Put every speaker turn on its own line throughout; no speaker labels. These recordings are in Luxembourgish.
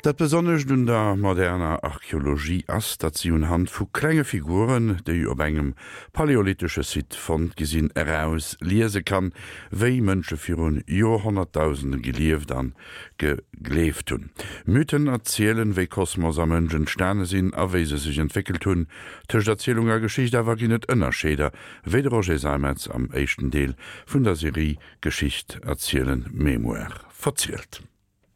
Dat Besonnescht un der moderner Archeologie ass, datt si unhand vu klenge Figuren, déi op engem paläolithesche Site fonnt gi sinn, eraus liese kann, wéi Mënsche virun Joerhonnertdausende gelieft an gegleeft hunn. Mythen erzielen, wéi Kosmos a Mënsch entstane sinn a wéi se sech entwéckelt hunn. Tëscht Erzielung a Geschicht awer ginn et Ënnerscheeder, wéi de Roger Seimetz am éischten Deel vun der Serie Geschicht erzielen, Mémoire verzielt.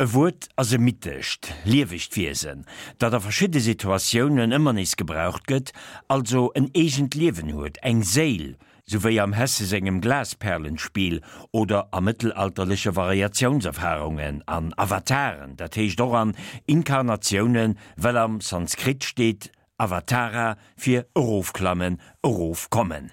E Wuert ass e mythescht, liewegt Wiesen, dat a verschidde Situatiounen ëmmer nees gebraucht gëtt, also en eegent Liewen huet, eng Séil, sou wéi am Hesse sengem Glasperlenspiel oder a mëttelalterleche Variatiounserfarungen, an Avataren, dat heescht och an Inkarnatiounen, well am Sanskrit steet Avatara fir erofklammen, erofkommen.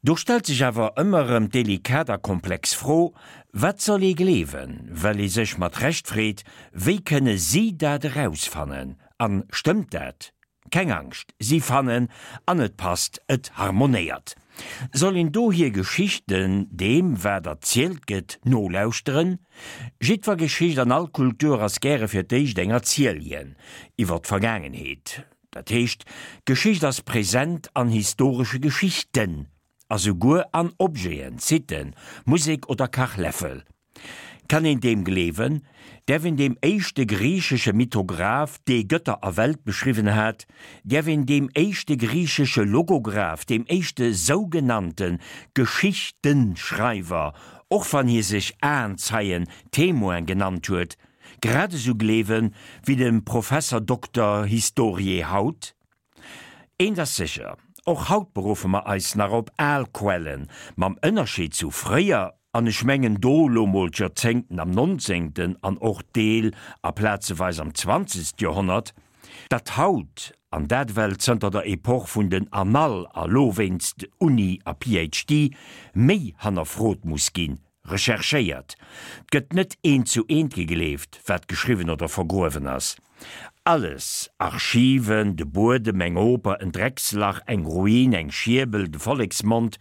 Do stellt sech awer ëmmer erëm d'delikat a komplex Fro, Wat soll ee gleewen? Well ee sech mat Recht freet, Wéi kënne si dat erausfannen? An stëmmt dat? Keng Angscht, si fannen an et passt, et harmonéiert. Soll een do hir Geschichten, deem wat erzielt gëtt, nolauschteren? Jiddwer Geschicht an all Kultur ass gäre fir d'éischt eng Erzieljen iwwer d'Vergaangenheet. Dat heescht, d'Geschicht ass present an historesche Geschichten a souguer an Objeten, Siten, Musek oder Kachläffel. Kann een deem gleewen? Däerf een deem éischte griichesche Mythograph, dee Gëtter a Welt beschriwwen hat, däerf een deem éischte griichesche Logograph, deem éischte sougenannte Geschichtenschreiwer, och wann hie sech Aenzeien, Témoin genannt huet, Grad esou gleewen wéi dem Professer Dokter Historiae haut? Eent ass sécher, och haut beruffe mer eis nach op al Quellen, mam Ënnerscheed zu fréier, an ech mengen do lo mol d'Joerzéngten am nonzéngten an och Deel a plazeweis am zwanzegst Joerhonnert, datt haut, an dat ewell zënter der Epoch vun den Annales a lo wéinst Uni a PhD, méi hannerfrot muss ginn, Recherchéiert. 't gëtt net eent zu eent gegleeft, wat geschriwwen oder vergruewen ass. Alles, Archiven, de Buedem, eng Oper, en Dreckslach, eng Ruin, eng Schierbel, de Volleksmond,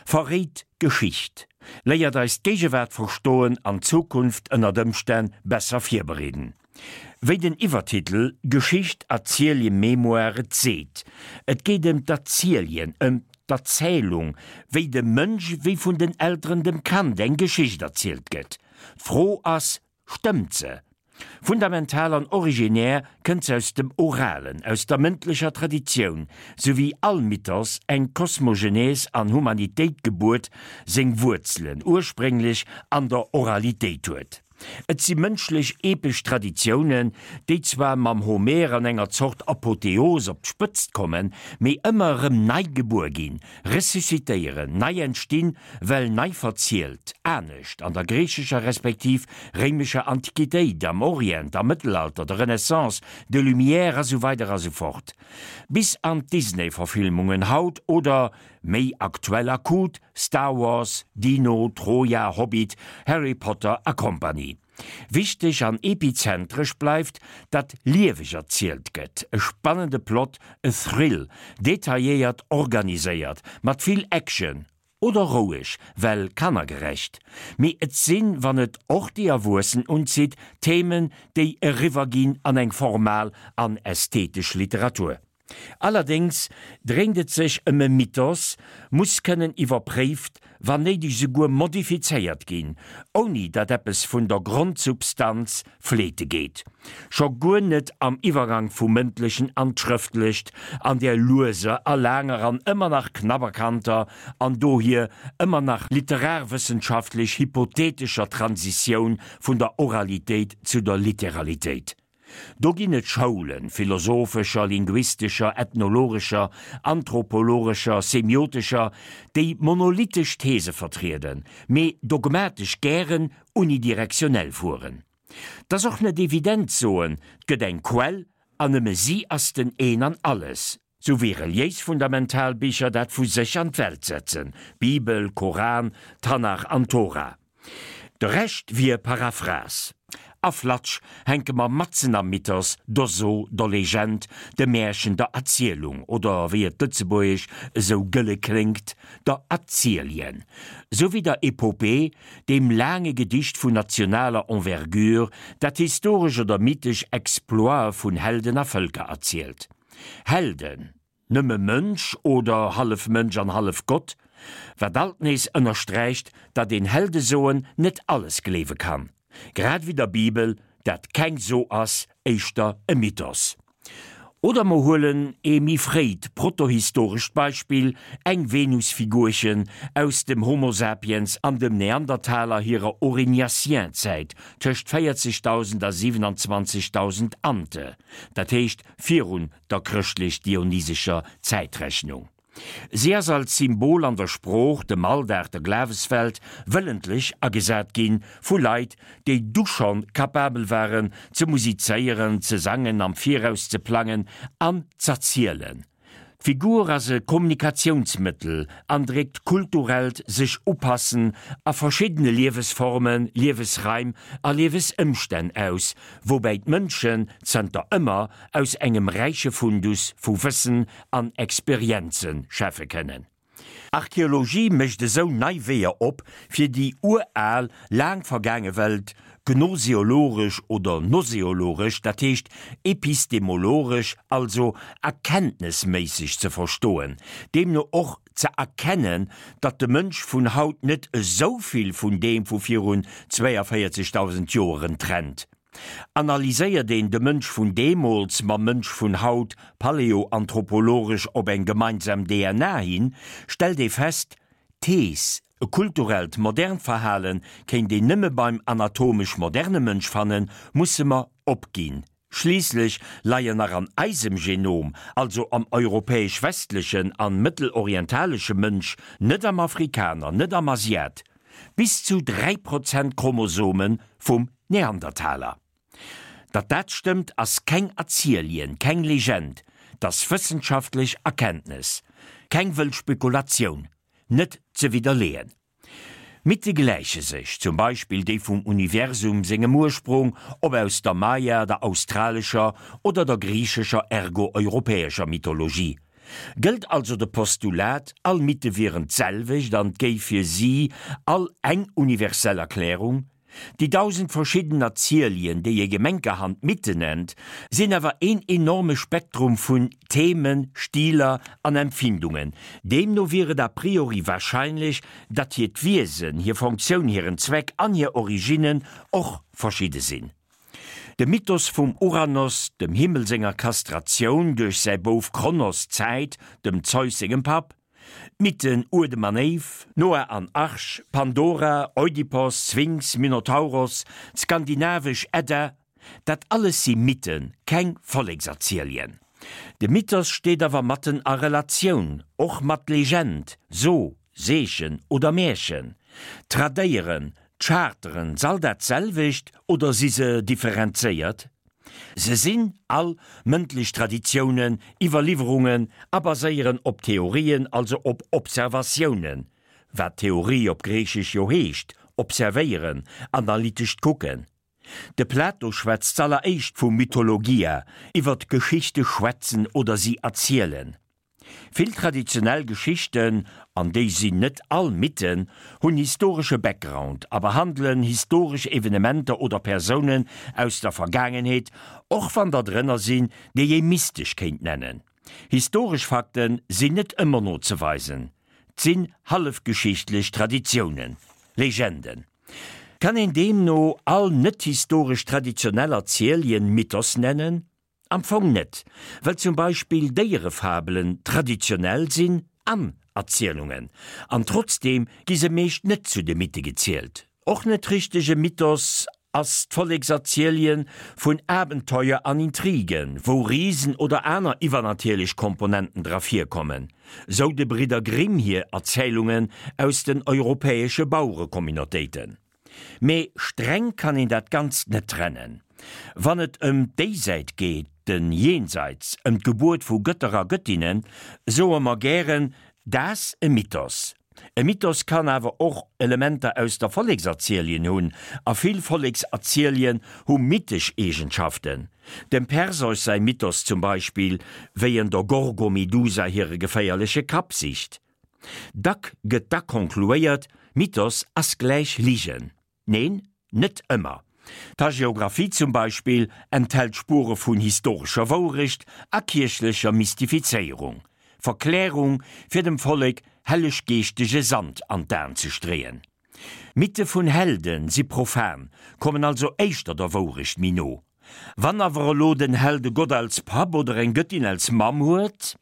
verréit Geschicht, léiert eis d'Géigewaart verstoen an d'Zukunft ënnert Ëmstänn besser virbereeden. Wéi den Iwwertitel Geschicht, Erzielje, Mémoire et seet, et geet ëm d'Erzieljen, ëm d'Erzählung, wéi dem Mënsch, wéi vun den Elteren dem Kand eng Geschicht erzielt gëtt. D'Fro ass, Stëmmt se? Fundamental an originär kënnt se aus dem Oralen, aus der mëndlecher Traditioun, sou wéi all Mythos eng Kosmogenese an Humanitéitgebuert seng Wuerzelen ursprénglech an der Oralitéit huet. Et si mënschlech epesch Traditiounen, déi zwar mam Homer an enger Zort Apotheos op d'Spëtzt kommen, mee ëmmer erëm nei gebuer ginn, ressuscitéieren, nei entstinn, well nei verzielt, anescht an der griichescher respektiv réimescher Antiquitéit, am Orient, am Mëttelalter, der Renaissance, de Lumières a sou weider a sou fort. Bis an d'Disney-Verfilmungen haut oder Méi aktuell akut, Star Wars, Dino, Troja, Hobbit, Harry Potter a Kompanie. Wichteg an epizentresch bleift, datt lieweg erzielt gëtt, e spannende Plot, e Thrill, detailléiert organiséiert, mat vill Action, oder roueg, well kannergerecht. Mee et sinn, wann et och déi Erwuessen unzitt, Themen, déi eriwwer ginn an eng formal an ästhetesch Literatur. Allerdéngs dréint et sech ëm e Mythos, muss kënnen iwwerpréift, wann néideg souguer modifizéiert ginn, ouni datt eppes vun der Grondsubstanz fleete geet. Scho guer net am Iwwergang vum Mëndlechen an d'Schrëftlecht, an där lueser a laanger an ëmmer nach knapp erkannter an dohier ëmmer nach literarwëssenschaftlech hypothetescher Transitioun vun der Oralitéit zu der Literalitéit. Do ginn et Schoulen, philosophescher, linguistescher, ethnologescher, anthropologescher, semiotescher, déi monolithesch These vertrieden, mee dogmatesch gären unidirektionell fueren. 't ass och net evident soen, 't gëtt eng Quell an nëmme si ass den Een an Alles, sou wéi reliéis fundamental Bicher dat vu sech an d'Welt setzen, Bibel, Koran, Tanach an Tora. De Rescht wier Paraphrase. A flatsch, hänke mer matzen am Mythos, der So, der Legend, dem Märchen, der Erzielung, oder wéi et lëtzebuergesch esou gëlle kléngt, der Erzieljen, sou wéi der Epopee, deem laange Gedicht vun nationaler Envergure, dat historesch oder mythesch Exploite vun Helden a Vëlker erzielt. Helden, nëmme Mënsch oder hallef Mënsch an hallef Gott, wat alt nees ënnersträicht, datt een Heldesoen net alles gleewe kann, grad ewéi der Bibel, dat keng So ass, éischter e Mythos. Oder mer huelen ee méi fréit protohistorescht Beispill, eng Venusfigurchen aus dem Homo sapiens an dem Neandertaler hirer Aurignacien-Zäit, tëscht 40.000 a 27.000 ante, dat heescht virun der chrëschtlech-dionysescher Zäitrechnung. Si ass als Symbol an der Sprooch, dem Alldag, der Glaweswelt wëllentlech agesat ginn vu Leit, déi du schonn kapabel waren ze musizéieren, ze sangen, am Viraus ze plangen an z'erzielen. D'Figur ass e Kommunikatiounsmëttel an dréckt kulturellt Sech-Upassen a verschiddene Liewesformen, Liewesraim a Liewesëmstänn aus, woubäi d'Mënschen zënter ëmmer aus engem räiche Fundus vu Wëssen an Experienze schäffe kënnen. Archeologie mécht esou nei Weeër op, fir déi ural, laang vergaange Welt gnoseologesch oder noseologesch, dat heescht epistemologesch, also erkenntnesméisseg ze verstoen, deemno och ze erkennen, datt de Mënsch vun haut net esou vill vun deem vu virun 42.000 Joeren trennt. Analyséiert een de Mënsch vun deemools mam Mënsch vun haut paläoanthropologesch op eng gemeinsam DNA hin, stellt ee fest, D'Thees, e kulturellt modernt Verhale kéint een nëmme beim anatomesch moderne Mënsch fannen, musse mer opginn. Schliisslech leien nach an eisem Genom, also am europäesch-westlechen an mëttelorientalesche Mënsch, net am Afrikaner, net am Asiat, bis zu 3 Prozent Chromosome vum Neandertaler. Datt dat stëmmt, ass keng Erzielien, keng Legend, 't ass wëssenschaftlech Erkenntnes, keng wëll Spekulatioun, net ze widderleeën. Mythe gläiche sech, zum Beispill déi vum Universum sengem Ursprung, ob aus der Maya, der australescher oder der griichescher ergo europäescher Mythologie. Gëllt also de Postulat, all Mythe wieren d'selwecht an 't géif fir si all eng universell Erklärung? Déi 1000 verschidden Erzielien, déi ee gemenkerhand Mythen nennt, sinn awer een enorme Spektrum vun Themen, Stiler an Empfindungen. Deemno wier et a priori warscheinlech, datt hiert Wiesen, hir Funktioun, hiren Zweck an hir Originnen och verschidde sinn. De Mythos vum Uranos, dem Himmel senger Kastratioun duerch säi Bouf Kronos, Zäit, dem Zeus sengem Papp, D'Mythen Uedem an Éiv, Noah an Arch, Pandora, Oidipos, Sphinx, Minotauros, d'skandinavesch Edda, dat alles si Mythen, keng Vollekserzielien. De Mythos steet awer matten a Relatioun och mat Legend, So, Seechen oder Märchen. Tradéieren, d'Charteren, s'all dat selwecht oder si se differenzéiert? Se sinn all mëndlech Traditiounen, Iwwerliwwerungen a baséieren op Theorien, also op Observatiounen, wat Theorie op Griichesch jo heescht, observéieren, analytescht Kucken. De Plato schwätzt z'alleréischt vu Mythologia, iwwer d'Geschichte schwätzen oder si erzielen. Vill traditionell Geschichten, an déi sinn net all Mythen, hunn historesche Background a behandelen historesch Evenementer oder Persounen aus der Vergaangenheet, och wann der drënner sinn, déi ee mystesch kéint nennen. Historesch Fakte sinn net ëmmer nozeweisen, 't sinn hallefgeschichtlech Traditiounen, Legenden. Kann een deemno all net-historesch traditionell Erzielien Mythos nennen? Am Fong net, well zum Beispill Déierefabelen traditionell sinn an Erzielungen, an trotzdeem gi se meescht net zu de Mythe gezielt. Och net richteg e Mythos ass d'Vollekserzielien vun Abenteuer an Intrigen, wou Risen oder aner iwwernatierlech Komponenten dra virkommen, sou de Bridder Grimm hir Erzählungen aus den europäesche Bauerecommunautéiten. Mee streng kann een dat Ganzt net trennen. Wann et ëm d'Déisäit geet, den Jenseits, ëm d'Gebuert vu Gëtter a Gëttinnen, soe mer gären, Daass e Mythos. E Mythos kann awer och Elementer aus der Vollekserzielien hunn, a vill Vollekserzielien hu mythesch Eegenschaften. Dem Perseus säi Mythos zum Beispill, wéi en der Gorgomedusa hire geféierleche Kapp sicht. Dack gëtt da konkluéiert, Mythos ass gläich Ligen. Neen, net ëmmer. D'Hagiographie zum Beispill enthält Spure vun historescher Wourecht a kierchlecher Mystifizéierung, Verklärung, fir dem Vollek helleg-geeschtege Sand an d'Aen ze streeën. Mythe vun Helde si profan, kommen also éischter der Wourecht méi no. Wann awer elo den Held e Gott als Papp oder eng Gëttin als Mamm huet?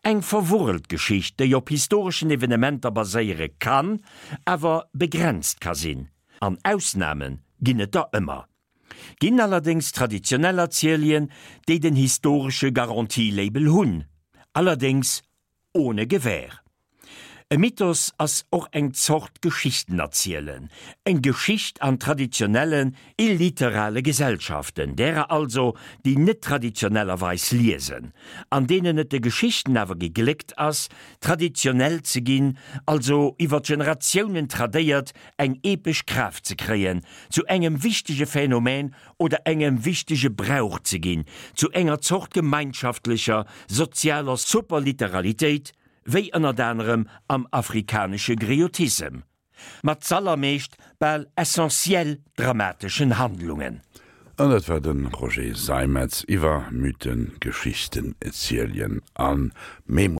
Eng verwurrelt Geschicht, déi op historeschen Evenementer baséiere kann, awer begrenzt ka sinn. An Ausname ginn et der ëmmer. Ginn allerdéngs traditionell Erzielien, déi den historesche Garantie-Label hunn, allerdéngs ohne Gewähr. E Mythos ass och eng Zort Geschichtenerzielen, eng Geschicht an traditionellen, illiterale Gesellschaften, därer also, déi net traditionellerweis liesen, an deenen et de Geschichten awer gegléckt ass, traditionell ze ginn, also iwwer Generatiounen tradéiert eng epesch Kraaft ze kréien, zu engem wichtege Phänomen oder engem wichtege Brauch ze ginn, zu enger Zort gemeinschaftlecher, sozialer Superliteralitéit, wéi ënnert anerem am afrikanesche Griotissem, mat z'allermeescht bal essentiell dramateschen Handlungen.
An dat war de Roger Seimetz iwwer Mythen, Geschichten, Erzählien a Memoiren.